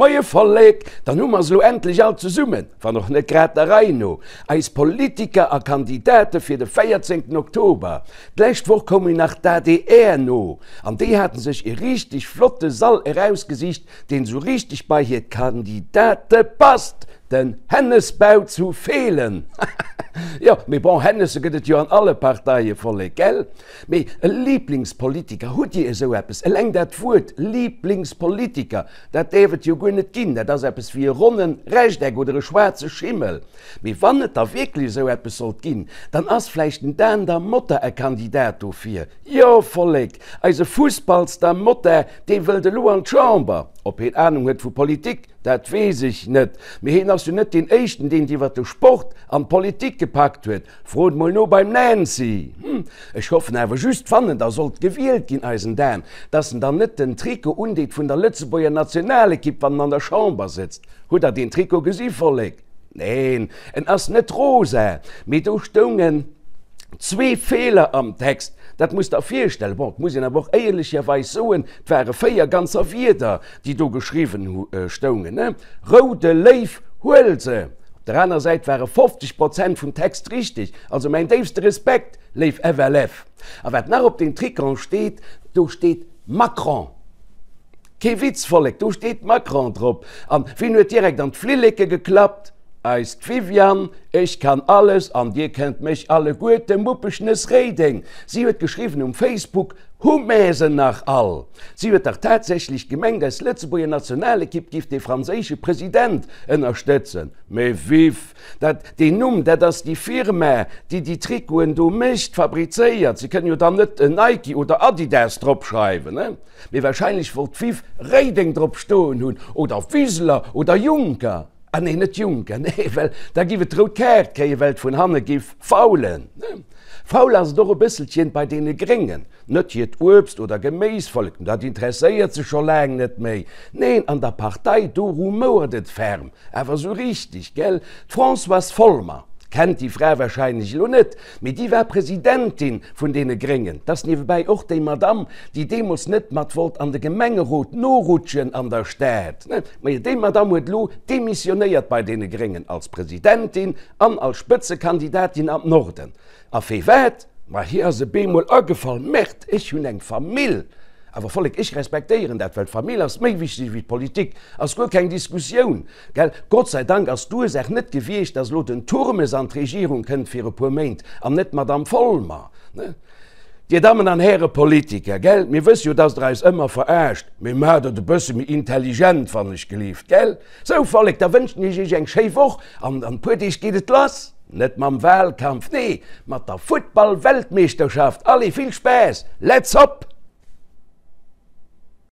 Moie Vollek, dann hu mer se elo endlech all zesummen, wann och net grad der Rei no, eis Politiker a Kandidate fir de 14 Oktober. D'lescht Woch koum jo nach d'ADR no, an déi haten sech e richteg flotte Sall erausgesicht, deen esou richteg bei hir Kandidate passt, den Hennesbau zu Feelen. Jo, mee bon, Hennesse gëtt et jo an alle Parteie, Vollek, gell? Mee e Liblingspolitiker, hutt Dir esou eppes? Eleng dat Wuert Liblingspolitiker, dat däerf et jo guer net ginn. Dat ass eppes wéi e ronne Rechteck oder e schwaarze Schimmel. Mee wann et da wierklech esou eppes sollt ginn, dann ass vläicht den Dan da Motta e Kandidat dofir. Jo, Vollek, eise Fussballstar Motta, dee wëllt elo an d'Chamber. Ob heen Anung huet vu Politik, dat weess ech net. Mee heen ass jo net deen éischten, deen et iwwer de Sport an d'Politik gepackt huet. Frot mol no beim Nancy! Hm, ech hoffen awer just, wann en da sollt gewielt ginn, eisen Dan, dass en dann net den Trikot undeet vun der Lëtzebuerger Nationalekipp, wann en an der Chamber sëtzt. Hutt der deen Trikot gesi, Vollek? Neen, en ass net rosa, mee do stoungen zwee Feeler am Text. Dat musst der virstellen. Bon, et muss een awer och éierlecherweis soen, et ware 4 ganzer Wierder, déi do geschriwwen stoungen, ne? Roude Léiw, huel se! Op der aner Säit ware 50 Prozent vum Text richteg. Also mäin déifste Respekt, léif FLF. A wat nach op deem Tricon steet, do steet Macron. Kee Witz, Vollek, do steet Macron drop. An wien huet direkt an d'Flilleke geklappt? Eist Viviane, Ech kann alles an dir kennt mech alleguerte, Muppeschnëss Réideng. Si huet geschriwwen um Facebook, Hu mär se nach all? Si huet dach tatsächlech gemengt, eis Lëtzebuerger Nationalekipp giff dee franséische President ënnerstëtzen. Mee Viv, dat, deen Numm, dat ass déi Firma, déi déi Trikoten do mécht, fabrizéiert. Se kënnen jo dann net Nike oder Adidas dropschreiwen, ne? Mee wahrscheinlech wollt d'Viv Réideng drop stoen hunn, oder Wiseler oder Juncker. Ah nee, net Juncker, nee, well da giff et d'rout Kaart kréien, well et vun hanne giff faulen. Faul ass et och e bësselchen bei deene Gréngen. Net hiert Uebst oder Geméisvollek, dat interesséiert se scho laang net méi. Neen, an der Partei, do rumouert et ferm, awer sou richteg, gell? D'Françoise Folmer, kennt déi Fra wahrscheinlech elo net, mee déi war Presidentin vun deene Gréngen. 't ass niewebäi och déi Madamm, déi deemools net mat wollt an de Gemengerot norutschen an der Stad. Majo, déi Madamm huet elo demissionéiert bei deene Gréngen als Presidentin an als Spëtzekandidatin am Norden. A firwat? Ma hir ass e bemol agefall, Merde, ech hunn eng Famill! Awer Vollek, ech respektéieren dat, well d'Famill ass méi wichteg wéi d'Politik, ass guer keng Diskussioun, gell? Gott sei Dank ass d'Ursaach net gewiescht, dass elo den Turmes an d'Regierung kënnt fir e puer Méint an net d'Madame Folmer, ne? Dir Dammen an Häre Politiker, gell, mir wësse jo, dass Der eis ëmmer verarscht, mee maacht et e bësse méi intelligent, wann ech gelift, gell? Sou, Vollek, da wënschen ech Iech eng schéi Woch an an e puer Deeg geet et lass, net mam Wahlkampf, nee, mat der Futtball-Weltmeeschterschaft. Allez, vill Spaass, let's hop!